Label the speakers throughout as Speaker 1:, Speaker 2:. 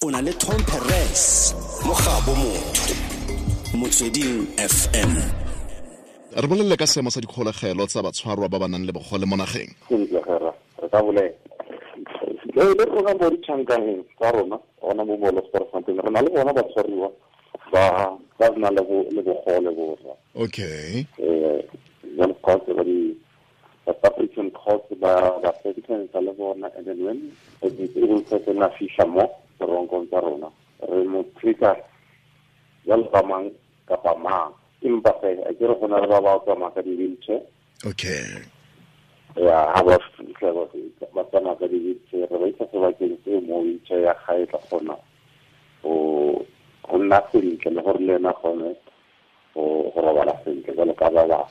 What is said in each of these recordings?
Speaker 1: O na le Tom Perez mo gabo motho Motsweding FM.
Speaker 2: Re bolelele ka seemo sa dikgolegelo tsa batshwarwa ba ba nang le bogole mo nageng.
Speaker 3: Sentle gera re ka bolela le rona mo ditšhankaneng tsa rona gona mo Molosperfontein re na le bona batshwariwa ba ba nang le bogole borra.
Speaker 2: Okay.
Speaker 3: Jalo course ba di South African court ba ba sentence le bona, and then when a disabled person a fitlha mo teronkong tsa rona re mo treat-a jalo ka mang kapa mang, empa fe a ke re go na le ba ba tsamaya ka di-wheelchair.
Speaker 2: Okay.
Speaker 3: Ya, ha ba fitlha ba tsamaya ka di-wheelchair, re ba isa sebakeng seo mo wheelchair ya gae tla kgona go nna sentle le gore le ena kgone go robala sentle jalo ka ba bangwe.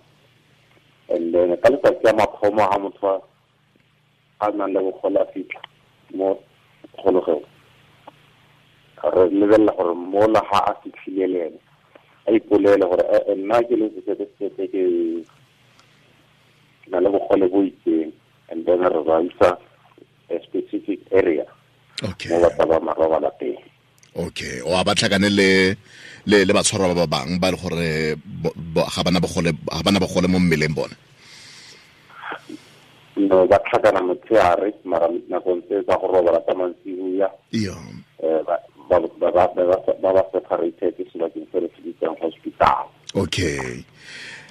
Speaker 3: And then ka letsatsi ya mathomo ha motho a nang le bogole a fitlha mo kgolegong, re lebelela gore mola ha a fitlhile le ene a ipolele gore nna ke le sese ke na le bogole bo itseng, and then re ba isa a specific area.
Speaker 2: Okay.
Speaker 3: Mo ba tla ba marobala teng.
Speaker 2: Okay, o a ba tlhakane le le batshwarwa ba ba bang ba le gore ga bana bogole mo mmeleng bone.
Speaker 3: No, ba tlhakana motshehare mara nakong tse tsa go robala tsa mantsiboya.
Speaker 2: Iyo.
Speaker 3: Ba separated sebakeng se re se bitsang hospital.
Speaker 2: Okay.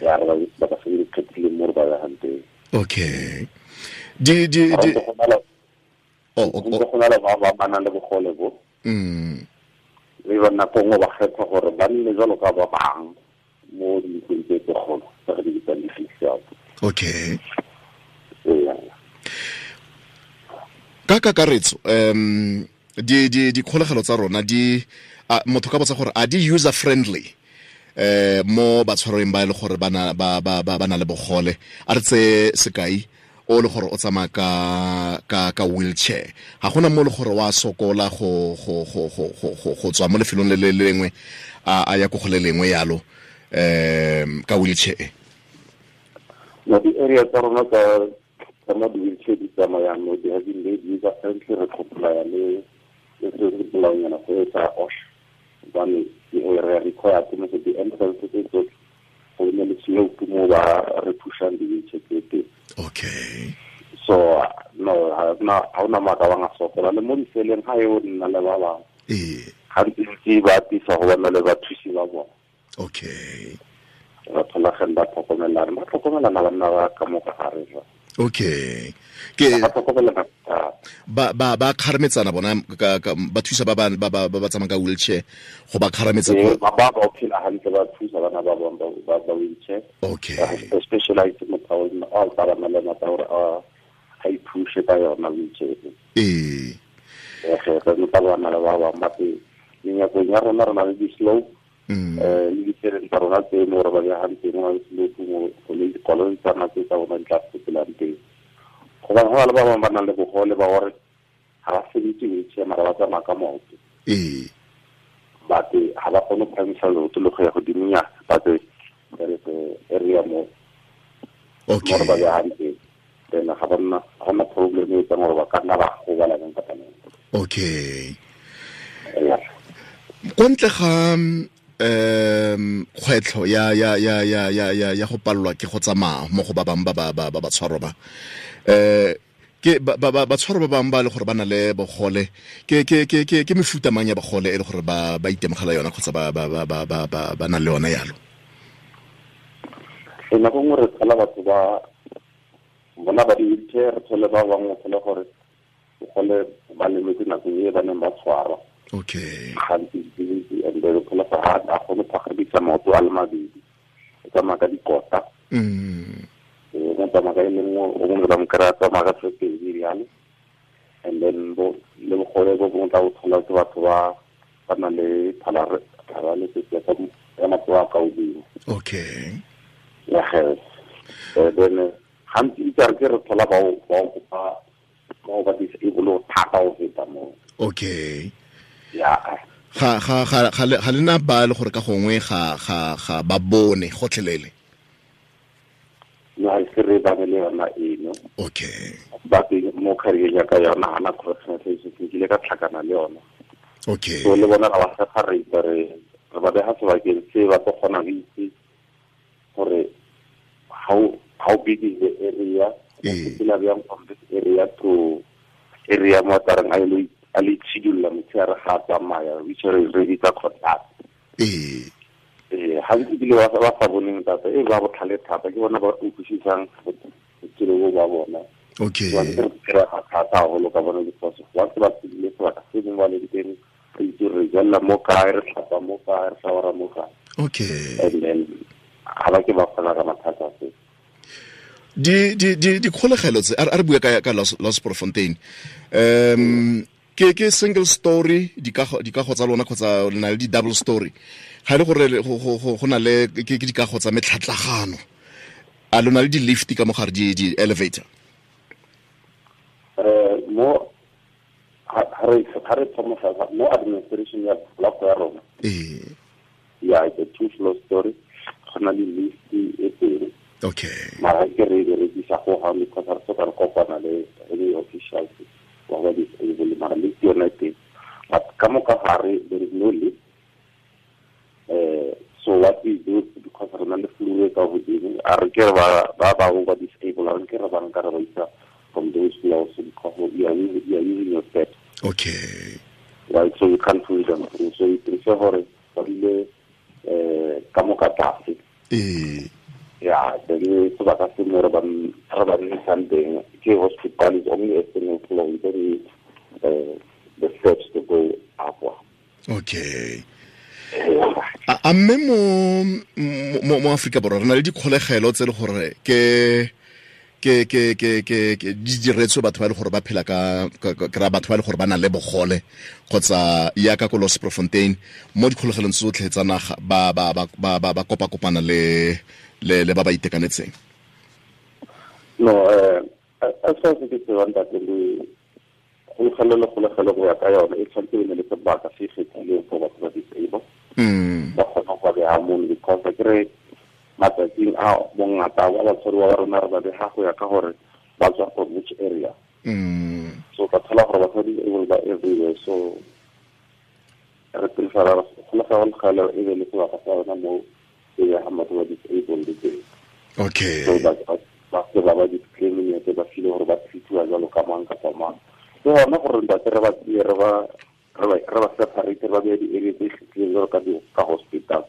Speaker 3: Ya re ba ba se di kgethile mo re ba yang teng.
Speaker 2: Okay. Di di di
Speaker 3: Oh, go na le ba ba nang le bogole bo. Le ba nako nngwe ba kgetha gore ba nne jalo ka ba bang mo dintlong tse tse kgolo tse re di bitsang di-fixed.
Speaker 2: Okay. Ka kakaretso di di dikgolegelo tsa rona di motho ka botsa gore a di user friendly mo batshwarweng ba e le gore ba na le bogole. A re tse sekai o le gore o tsamaya ka wheelchair, ga gona mo le gore wa sokola go go go go go go tswa mo lefelong le le lengwe a ya ko go le lengwe yalo ka wheelchair.
Speaker 3: No, di-area tsa rona tsa mo di-wheelchair di tsamayang no di have been made user friendly. Re comply le se se bolaonyana go etsa OSH, gobane re require mo di-entrance tse tsotlhe go nne le slope mo ba re pushang di-wheelchair tse teng.
Speaker 2: Okay.
Speaker 3: So no, ha ona maaka ba nga sokola le mo diseleng ga e o nna le ba bangwe. Gantsi ba atisa go bona le bathusi ba bona.
Speaker 2: Okay.
Speaker 3: Ba tholageng ba tlhokomelana, ba tlhokomelana banna ba ka mo ka gare jwa.
Speaker 2: Okay. Ke
Speaker 3: ba tlhokomelana
Speaker 2: ba kgarametsana bona ba thusa ba ba ba ba tsamaya ka wheelchair go ba kgarametsa
Speaker 3: ba ba ba phela hantle, ba thusa bana ba bang ba wheelchair.
Speaker 2: Okay.
Speaker 3: Specialized motho o ba ba le motho gore a iphushe ka yona wheelchair.
Speaker 2: Eh.
Speaker 3: Re re ba bana ba ba ba teng menyakong ya rona re na le di-slope. Le ditseleng tsa rona tse mo re ba behang teng mo slope mo le dikoloi tsa rona tse tsa bona di tla fetelang teng. Gobane go na le ba bangwe ba nang le bogole ba gore ga ba sebetse wheelchair mara ba tsamaya ka maoto. But ga ba kgone go phahamisa leoto le go ya godimonyana, but there is a area mo
Speaker 2: Okay.
Speaker 3: mo re ba behang teng. Then ga ba nna ga gona problem e etsang gore ba ka nna ba gobala neng kapa neng.
Speaker 2: Okay. Kwa ntle ga kgwetlho ya ya ya ya ya ya ya go palelwa ke go tsamaya mo go ba bang ba ba ba ba batshwarwa ba ke ba ba batshwarwa ba bang ba le gore ba na le bogole ke ke ke ke ke mefuta mang ya bogole e le gore ba ba itemogela yona kgotsa ba ba ba ba ba ba na le yona yalo.
Speaker 3: E nako nngwe re thola batho ba bona ba di-wheelchair, re thole ba bangwe thole gore bogole ba lemetse nako e ba neng ba tshwarwa.
Speaker 2: Okay.
Speaker 3: Gantsi and then thola gore ga a kgone go phagamisa maoto a le mabedi, o tsamaya ka dikota. O tsamaya ka e le nngwe, o mongwe ba mo kry-a tsamaya ka tse pedi bjalo. And then le bogole bo bongwe tla bo thola ke batho ba ba nang le paralysis ya matsogo a ka godimo.
Speaker 2: Okay.
Speaker 3: Ya ge. Then gantsi ke re ke re thola bao ba disable thata go feta moo.
Speaker 2: Okay.
Speaker 3: Ya.
Speaker 2: Ga ga ga ga le na ba le gore ka gongwe ga ga ga ba bone gotlhelele.
Speaker 3: No, ha se re ba le yona eno.
Speaker 2: Okay.
Speaker 3: Ba teng mo career ya ka yona hana correctional services ke ile ka tlhakana le yona.
Speaker 2: Okay.
Speaker 3: So le bona ga ba separate, re ba beha sebakeng se ba tlo kgona go itse gore how big is the area, sepela bjang from this area to area mo tarang a le a le tshidulla motshehare ga a tsamaya, which re bitsa contact. Ga ntse bile ba sa boneng thata, e ba botlhale thata, ke bona ba utlwisisang botshelo bo ba bona.
Speaker 2: Okay.
Speaker 3: Ba re kry-a thata haholo ka bona because once ba tsebile sebaka se mongwe ba leng teng, re itse re jella mo kae, re tlhapa mo kae, re shawara mo kae.
Speaker 2: Okay.
Speaker 3: And then ga ba ke ba kgona ka mathata se.
Speaker 2: Di dikgolegelo tse a re bua ka Losperfontein, ke single story dikago tsa lona kgotsa le na le di double story? Ga e le gore go na le ke dikago tsa metlhatlagano, a lona le di-lift ka mogare, di elevator?
Speaker 3: Mo ha re thoma mo administration ya block ya rona, ya it's a 2 floor story, go na le lift e teng.
Speaker 2: Okay.
Speaker 3: Mara ke re berekisa go ga because re soka re kopana le any officials wa ba disabled, mara lift yona e teng, but ka mo ka gare there is no lift. So what we do, because re na le floor e ka godimo, a re ke re ba bangwe ba disabled, a re ke re ba nka re ba isa from those floors because we are using your steps.
Speaker 2: Okay.
Speaker 3: Right, so you can't pull them through. So we prefer gore ba dule ka mo ka tlase. Yeah, then sebaka se mo re ba nnisang teng ke hospital is only a single floor, we don't need the steps to go up.
Speaker 2: Okay. A mme mo Afrika Borwa re na le dikgolegelo tse le gore ke di diretswe batho ba le gore ba phela ka kra batho ba le gore ba na le bogole, kgotsa ya ka ko Losperfontein mo dikgolegelong tsotlhe tsa naga ba ba ba ba ba kopa kopana le le ba ba itekanetseng?
Speaker 3: No, as far as ke tsebang ntate, le kgolegelo go ya ka yone e tshwanetse e ne le sebaka se kgethileng for batho ba disabled, ba kgona go ba beha mono, because ke re matsatsing a bongata ba batshwariwa ba rona re ba beha go ya ka gore ba tswa from which area. So ka thola gore batho ba disabled ba everywhere, so re prefera kgolegelo e be le sebaka sa yona mo e beha batho ba disabled teng.
Speaker 2: Okay.
Speaker 3: So ba se ba ba discriminate, ba feel gore ba treatiwa jalo ka mang kapa mang. Ke gona gore ntate re ba tseye re ba separate, ba beye di-area tse kgethileng jalo ka hospital.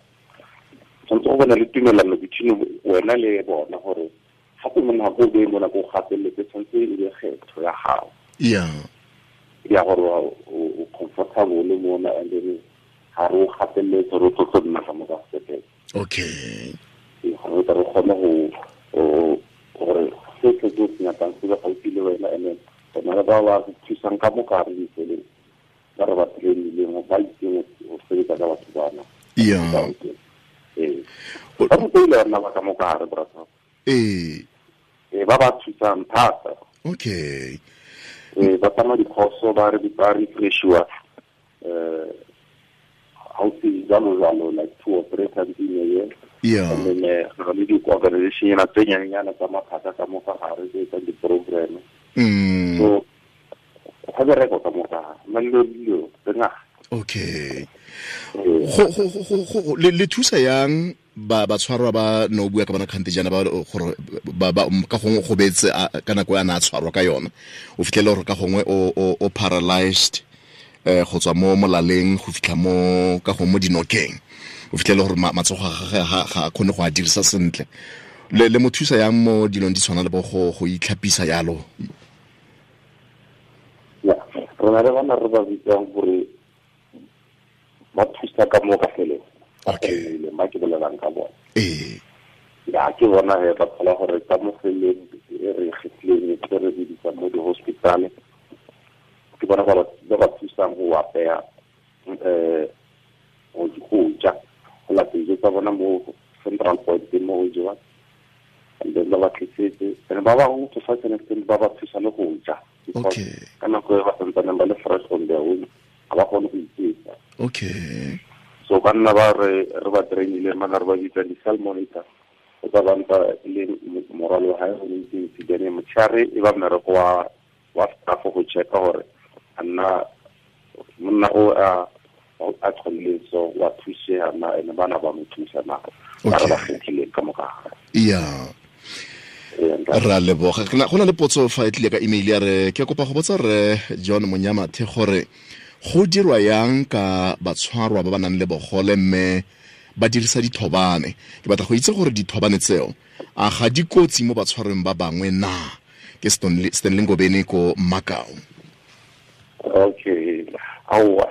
Speaker 3: Tshwanetse go bona le tumelano between wena le bona gore gape mo nako o beye mo nako o gateletse, tshwanetse e be kgetho ya gago.
Speaker 2: Yeah.
Speaker 3: Ya gore o comfortable mona, and then ga re o gateletse gore o tlo nna ka mo ka sepetlele.
Speaker 2: Okay.
Speaker 3: Gore re kgone go gore se se se nyakang se be gaufi le wena, and then rena le ba ba thusang ka mo ka re ditseleng ba re ba trainileng ba itseng go sebetsa ka batho bana.
Speaker 2: Yeah.
Speaker 3: Ba rutile rena ba ka mo ka gare, brother. Ba ba thusang thata.
Speaker 2: Okay.
Speaker 3: Ba tsamaya dikhoso, ba re ba refreshiwa ga o se jalo jalo, like 2 or 3 times in a year.
Speaker 2: Yeah.
Speaker 3: And then re le di-organization ena tse nyanenyana tsa maphata ka mo ka gare tse etsang di-program. So go bereko ka mo ka gare, na le dilo tse ngata.
Speaker 2: Okay. Go le thusa yang ba batshwarwa ba no bua ka bona kgante jana ba gore ba ka gongwe go betse ka nako ya na tshwarwa ka yona, o fitlhele gore ka gongwe o paralyzed go tswa mo molaleng go fitlha mo ka gongwe mo dinokeng, o fitlhele gore matsogo a gagwe ga a kgone go a dirisa sentle. Le mo thusa yang mo dilong di tshwana le bo go itlhapisa yalo?
Speaker 3: Ya, rona re bana re ba bitsang gore ba thusa ka mo ka feleng.
Speaker 2: Okay.
Speaker 3: Ba ke bolelang ka bona.
Speaker 2: Ya
Speaker 3: ke bona he ba thola gore ka mo feleng e re kgethileng e re biditsang mo di-hospital, ke bona ba ba thusang go apeya go ja, go lata dijo tsa bona mo central point mo go jewa, and then ba ba tlisetse, and ba bangwe to such an extent ba ba thusa le go ja.
Speaker 2: Okay.
Speaker 3: Ka nako e ba santsaneng ba le fresh on their own, ga ba kgone go iketsa.
Speaker 2: Okay.
Speaker 3: So banna ba re ba trainile mana re ba bitsa di-cell monitor, o tsa banta le morwalo wa hae o montsi, then motshehare e ba mmereko wa staff go checka gore a nna Monna o a a tlholle so wa thusega na ene bana ba mo thusa na ba re ba kgethile ka moka.
Speaker 2: Yeah. Ra leboga. Go na le potso fa e tlile ka email ya re ke kopa go botsa re John Monyamathe gore go dirwa yang ka batshwarwa ba ba nang le bogole mme ba dirisa dithobane. Ke batla go itse gore dithobane tseo a ga di kotsi mo batshwarweng ba bangwe na? Ke Stanley Ngobeni ko Makau.
Speaker 3: Okay. Aowa,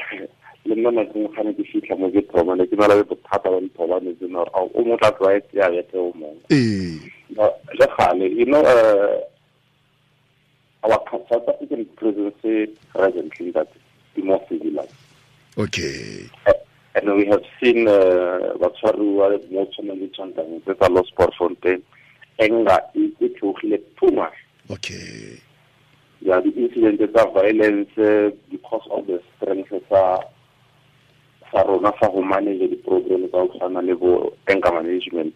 Speaker 3: le nna nako nngwe ga ne ke fitlha mo ke thobane, ke na le bothata ba dithobane tsena gore ao, o mongwe tla tlwaetse ya bethe o mongwe. Le gale, you know, our South African prisons presently that the more civilized.
Speaker 2: Okay.
Speaker 3: And we have seen batshwaruwa mo tshwanang le tshwanang tse tsa Losperfontein, anger e theogile too much.
Speaker 2: Okay.
Speaker 3: Yeah, the incident tsa violence because of the strength tsa rona sa go manage di-problem tsa go tshwana le bo anger management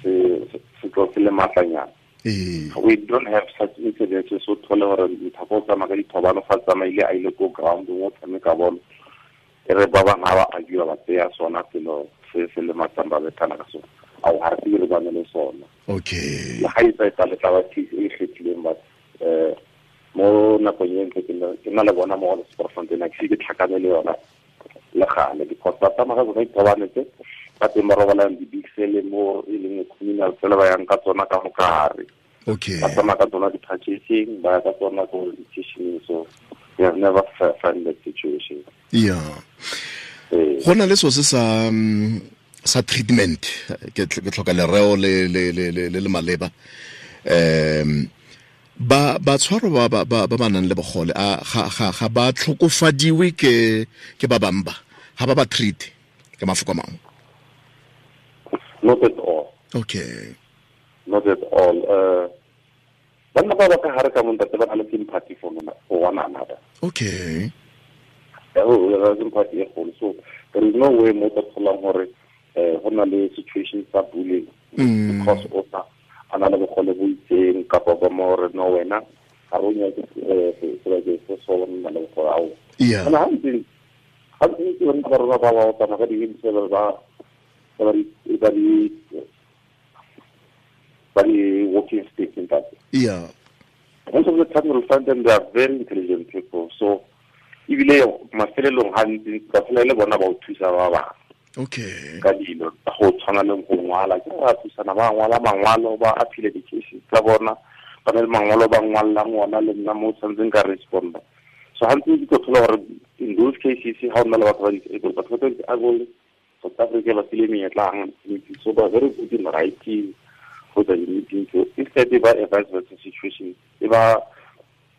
Speaker 3: se tlo se le matlanyana. We don't have such incidents, so thole gore motho o tsamaya ka dithobano fa tsamaile a ile ko ground mo tshameka bolo, e re ba bangwe ga ba agiwa ba tseya sona selo se se le matsang ba bethana ka sona. Ao, ga re se re bane le sona.
Speaker 2: Okay.
Speaker 3: Le ga e tsa e tla le tla ba case e kgethileng, but mo nakong e ntse ke na le bona mo Losperfontein, ke se ke tlhakane le yona le gale, because ba tsamaya ka tsona dithobane tse ba teng ba robalang di-big cell mo e leng communal cell ba yang ka tsona ka mokare.
Speaker 2: Okay.
Speaker 3: Ba tsamaya ka tsona di-purchasing, ba ya ka tsona ko di-kitchening, so we have never find that situation.
Speaker 2: Yeah. Go na le so se sa treatment, ke tlhoka lereo le le le le le maleba. Ba batshwaro ba ba ba ba nang le bogole a ga ga ga ba tlhokofadiwe ke ba bangwe ba ga ba ba treat ka mafoko a mangwe.
Speaker 3: Not at all.
Speaker 2: Okay.
Speaker 3: Not at all. Banna ba ba ka hare ka mo ntate ba na le sympathy for one another.
Speaker 2: Okay.
Speaker 3: Sympathy e kgolo. So there is no way mo tla tholang gore go na le situation tsa bullying because o sa a na le bogole bo itseng kapa ba mo gore no wena ga re o nyake sebakeng se so nna le bogole ao.
Speaker 2: Yeah.
Speaker 3: Ga ntse banna ba rona ba ba tsamaya ka di-wheelchair ba ba di walking stick in that.
Speaker 2: Yeah.
Speaker 3: Most of the time you'll find them, they are very intelligent people. So ebile mafelelong gantsi ba phela le bona ba o thusa ba bangwe.
Speaker 2: Okay.
Speaker 3: Ka dilo tsa go tshwana le go ngwala, ke ba thusana ba ngwala mangwalo, ba appeal di-cases tsa bona, ba na le mangwalo ba ngwallang ona le nna mo tshwanetseng ka responda. So gantsi ke tlo thola gore in those cases ga o nna le batho ba disabled, batho ba disabled South Africa ba file menyetla gantsi, so ba very good in writing go tsa di-meeting. So instead ba a vice versa situation, e ba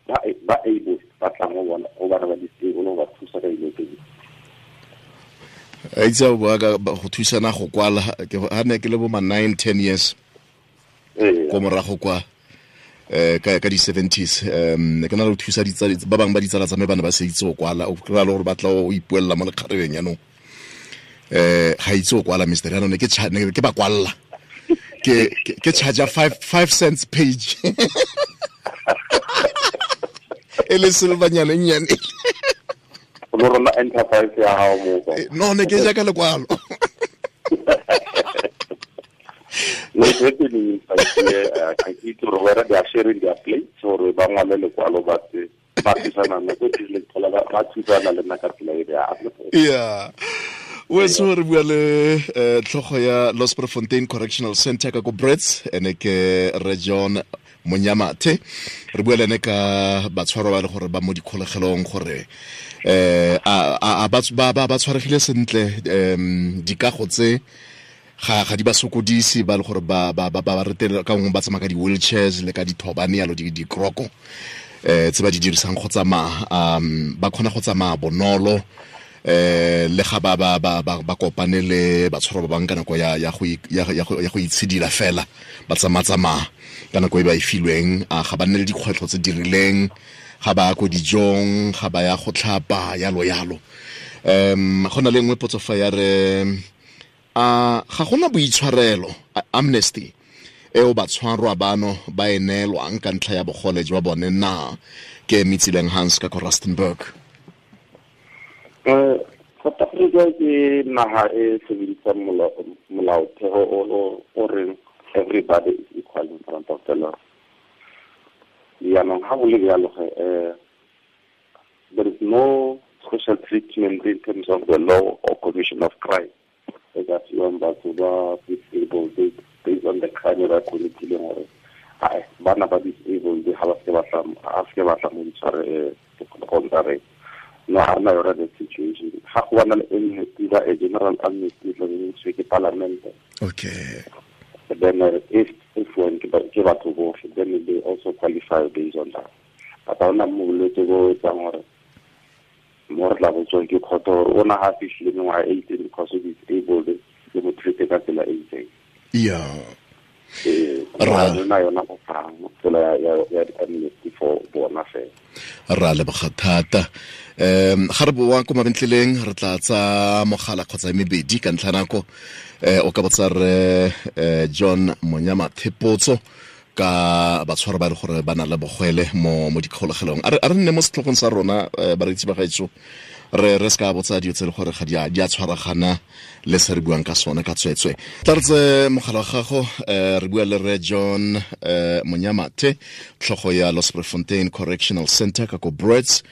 Speaker 3: ba able ba tlang go bona go bana ba disabled go ba thusa ka dilo tse dingwe.
Speaker 2: A itse o bua ka go thusana go kwala, ke ha ne ke le bo ma 9-10 years ko morago kwa ka di 70s, ne ke na le go thusa ditsala ba bangwe ba ditsala tsa me ba ne ba se itse go kwala, o kry-a le gore ba tla o ipuelela mo lekgarebeng jaanong. Ga itse go kwala mister, jaanong ne ke ba kwalla ke charge 5 cents page e le silvanyana e nnyane.
Speaker 3: Lo rona enterprise ya gago mo kwa.
Speaker 2: No, ne ke jaaka lekwalo.
Speaker 3: No, it's happening in fact, I ke itse gore whether they are sharing their plates or ba ngwale lekwalo ba tse ba thusana nna ko tlile thola ba thusana le nna ka tsela e ya.
Speaker 2: Yeah. Weso re bua le tlhogo ya Losperfontein Correctional Center ka ko Brits, ene ke Re John Monyamathe. Re bua le ene ka batshwarwa ba le gore ba mo dikgolegelong gore a ba tshwaregile sentle, dikago tse ga di ba sokodise ba le gore ba ba ba retela ka nngwe ba tsamaya ka di-wheelchairs le ka dithobane yalo dikroko tse ba di dirisang go tsamaya, ba kgona go tsamaya bonolo le ga ba ba ba ba kopane le batshwarwa ba bangwe ka nako ya ya go ya go itshidila fela ba tsamaya ka nako e ba e filweng, a ga ba nne le dikgwetlho tse di rileng, ga ba ya ko dijong, ga ba ya go tlhapa yalo yalo. Go na le nngwe potso fa ya re a ga gona boitshwarelo amnesty eo batshwarwa bano ba e neelwang ka ntlha ya bogole jwa bone na? Ke Mitsileng Hans ka ko Rustenburg.
Speaker 3: South Africa ke naga e sebedisang molaotheo o reng everybody is equal in front of the law. Jaanong ga go le bjalo ge, there is no special treatment in terms of the law or commission of crime e ka fiwang batho ba disabled based on the crime ba committileng, gore ai bana ba disabled ga ba se ba tla mo ditshware dikgolegong tsa rena. No, ga rena yona that situation. Ga go bana le amnesty ba a general amnesty tla be ntshwe ke parliament.
Speaker 2: Okay.
Speaker 3: Then if one ke batho botlhe, then they also qualify based on that. But ga ona bolwetse bo etsang gore mo re tla botswang ke kgotho gore o na ga fitlhile mengwaga e itseng because o disabled, le mo treat ka tsela e itseng.
Speaker 2: Yeah.
Speaker 3: Rena yona go fang tsela ya di-amnesty for bona fela.
Speaker 2: Ra leboga thata. Ga re boa ko mabentleleng re tla tsa mogala kgotsa mebedi ka ntlha nako. O ka botsa re John Monyamathe potso ka batshwaro ba le gore ba na le bogwele mo dikgolegelong. A re nne mo setlhogong sa rona, bareetsi ba gaetsho, re se ka botsa dilo tse le gore ga di a tshwaragana le se re buang ka sone ka tswetswe. Tla re tse mogala wa gago, re bua le re John Monyamathe, tlhogo ya Losprefontein Correctional Center ka ko Brits,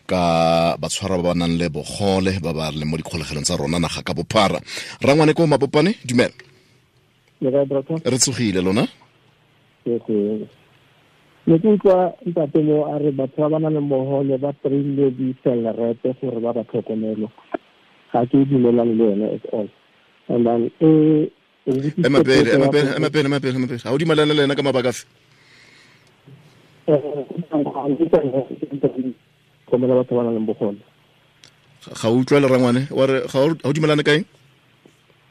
Speaker 2: ka batshwaro ba ba nang le bogole ba ba leng mo dikgolegelong tsa rona naga ka bophara. Rangwane ko Mabopane, dumela. Re tsogile lona?
Speaker 4: Ne ke utlwa ntate mo a re batho ba ba nang le bogole ba trainile di-cellerete gore ba ba tlhokomelo. Ga ke dumelane le yone at all. And then
Speaker 2: ema pele ga o dumelane le ena ka mabaka afe?
Speaker 4: Tlhokomela batho ba nang le bogole.
Speaker 2: Ga o utlwa le rangwane wa re ga o dumelane kaeng?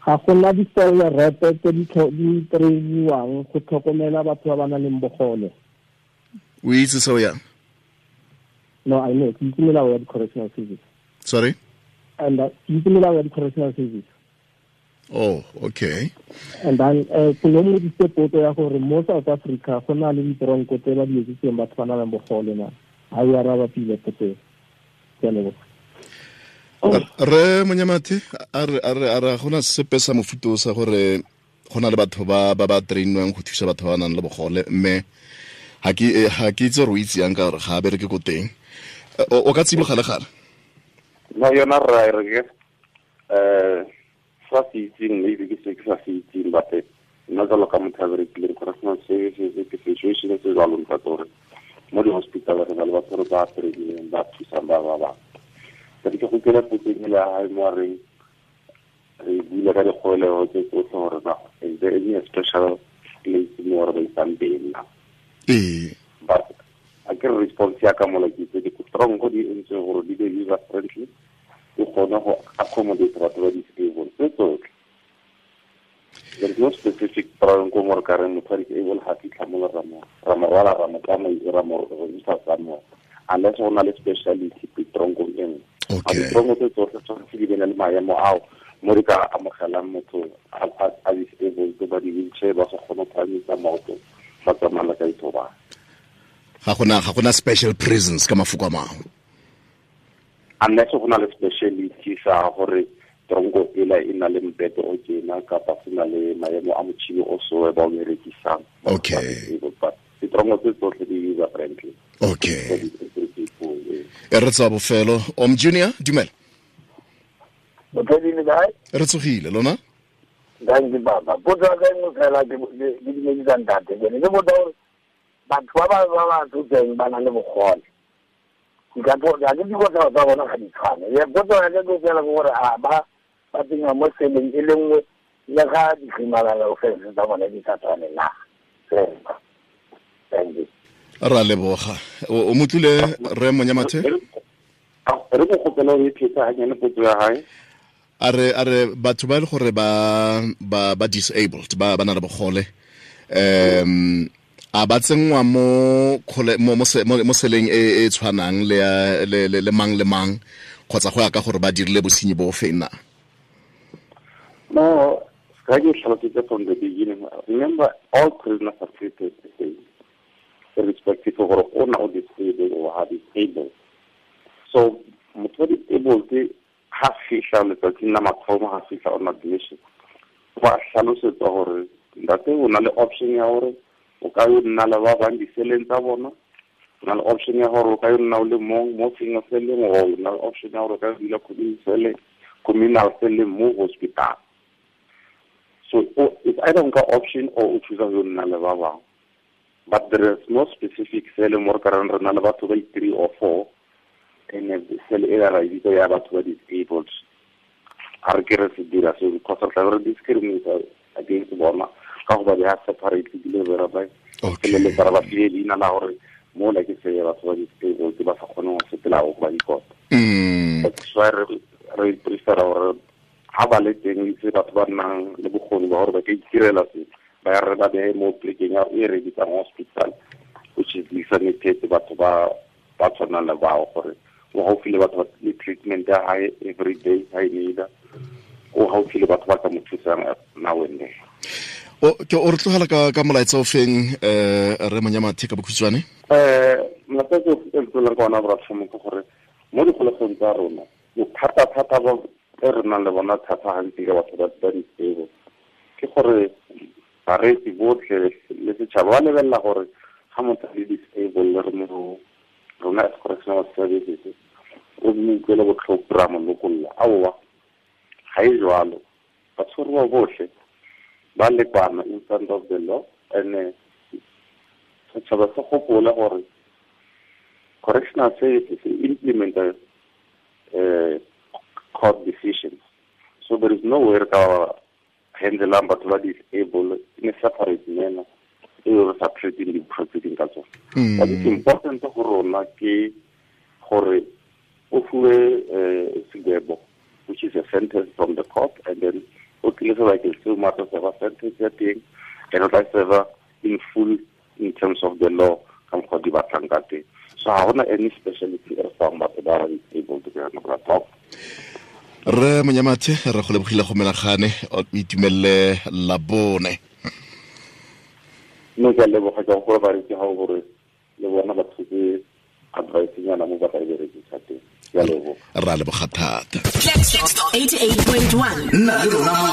Speaker 4: Ga gona di-cellerete tse di trainiwang go tlhokomela batho ba ba nang le bogole.
Speaker 2: O itse seo yang?
Speaker 4: No, I know. Ke itse melao ya di-correctional service.
Speaker 2: Sorry?
Speaker 4: And ke itse melao ya di-correctional service.
Speaker 2: Oh, okay.
Speaker 4: And then ke no modise potso ya gore mo South Africa go na le ditronko tse ba di etsitseng batho ba nang le bogole na. Ha e araba pile potso eo. Ke a leboga.
Speaker 2: Re Monyamathe, a re gona sepe sa mofuta sa gore go na le batho ba ba trainwang go thusa batho ba nang le bogole, mme ga ke itse gore o itse yang ka gore ga a bereke ko teng. O ka tsiboga le gale?
Speaker 3: No, yona rra re ke sa se itseng, maybe ke se ke sa se itseng, but nna jalo ka motho a berekileng correctional services, ke situation se jalo ntate gore mo di-hospital re na le batho re ba trainileng ba thusang ba ba bangwe. Ke go kela potso e le hae mo reng re buile ka dikgolego tse tsotlhe gore na is there any special place mo re ba isang teng na?
Speaker 2: Ee.
Speaker 3: But a ke response ya ka mola ke itse ditronko di entswe gore di be user friendly, di kgone go accommodate batho ba disabled tse tsotlhe. There is no specific tronko mo re ka reng motho wa disabled ga fitlha mo ra mo rwala ra mo tsamaisa ra mo isa somewhere, unless go na le speciality tronkong e nngwe.
Speaker 2: Okay.
Speaker 3: Ditronko tse tsotlhe tshwanetse di be le maemo ao mo di ka amogelang motho a disabled ba di-wheelchair ba sa kgone go phahamisa maoto ba tsamaya ka ithobala.
Speaker 2: Ga gona special prisons ka mafoko a mangwe.
Speaker 3: Unless go na le speciality sa gore tronko ela e na le mbete o tjena kapa se na le maemo a motšhini o so ba o berekisang.
Speaker 2: Okay.
Speaker 3: But ditronko tse tsotlhe di user friendly.
Speaker 2: Okay. E re tsa bofelo. Om Junior, dumela. Re tsogile lona?
Speaker 5: Thank you, Baba. Potso ya ka e nngwe fela ke dumedisa ntate. Ke ne ke botsa gore batho ba ba tsotseng ba na le bogole, ga ke dikotlhao tsa bona ga di tshwane. Potso ya ka ke fela ke gore a ba tsengwa mo seleng e le nngwe le ga di-criminal offense tsa bone di sa tshwane na? Thank you.
Speaker 2: Ra leboga. O motlile re Monyamathe?
Speaker 3: Re go gopela o e phetsa hanyane potso ya hae.
Speaker 2: A re batho ba le gore ba disabled, ba na le bogole, a ba tsenngwa mo seleng e e tshwanang le mang le mang, kgotsa go ya ka gore ba dirile bosenyi bo feng na?
Speaker 3: No, ga ke tlhalositse from the beginning. Remember, all prisoners are treated the same, irrespective of gore o na o disabled or ha disabled. So motho wa disabled Ha fihla letsatsing la mathomo, ha fihla on admission, ba hlalosetsa hore ntate o na le option ya hore o ka yo nna le ba bang diseleng tsa bona, o na le option ya hore o ka yo nna o le mong mo single cell-eng, o na le option ya hore o ka yo dula communal cell-eng mo hospital. So it's either nka option or o choose yo nna le ba bang, but there is no specific cell mo re ka reng re na le batho ba 3 or 4 and cell e ra e bitsa ya batho ba disabled. A re ke re se dira seo because re tla re discriminate against bona ka go ba beha separately ebile re ba feleletsa re ba file leina la gore mo la ke se ya batho ba disabled ba sa kgoneng go sepela go ba dikota. That's why re prefera gore ha ba le teng itse batho ba nnang le bokgoni ba gore ba ka itirela se ba re ba behe mo plekeng ya e re bitsang hospital, which is designated batho ba tshwanang le bao gore o gaufi le batho ba le treatment ya hae every day ha e need, o gaufi le batho ba ka mo thusang now and then.
Speaker 2: O ke o re tlogela ka molaetsa o feng re Monyamathe ka bokhutshwane?
Speaker 3: Molaetsa o tlolang ka ona bra ke gore mo dikgolegong tsa rona bothata-thata ba e re nang le bona thata gantsi ka batho ba disabled ke gore bareetsi botlhe le setšhaba ba lebelela gore ga motho a le disabled re mo rona as correctional services o mo utlwele botlhoko ra mo lokolla. Aowa, ga e jwalo, batshwariwa botlhe ba lekana in front of the law, and setšhaba se gopole gore correctional services implement court decisions. So there is no way ka handlelang batho ba disabled in a separate manner e re sa treating di-proceeding ka tsone. But it's important go rona ke gore o fuwe segwebo, which is a sentence from the court, and then o tlile sebakeng seo mo a tla serva sentence ya teng, and o tla serva in full in terms of the law ka mokgwa di batlang ka teng. So ga gona any speciality e re fang batho ba ba disabled ke yona bra top.
Speaker 2: Re Monyamathe, re go lebogile go menagane, o itumelele Labone.
Speaker 3: Nne ke a leboga ka gore bareetsi ga gore le bona ba thuse advice nyana mo ba ka e berekisa teng. Ke a leboga.
Speaker 2: Ra leboga thata.
Speaker 6: 88.1 nna le rona mo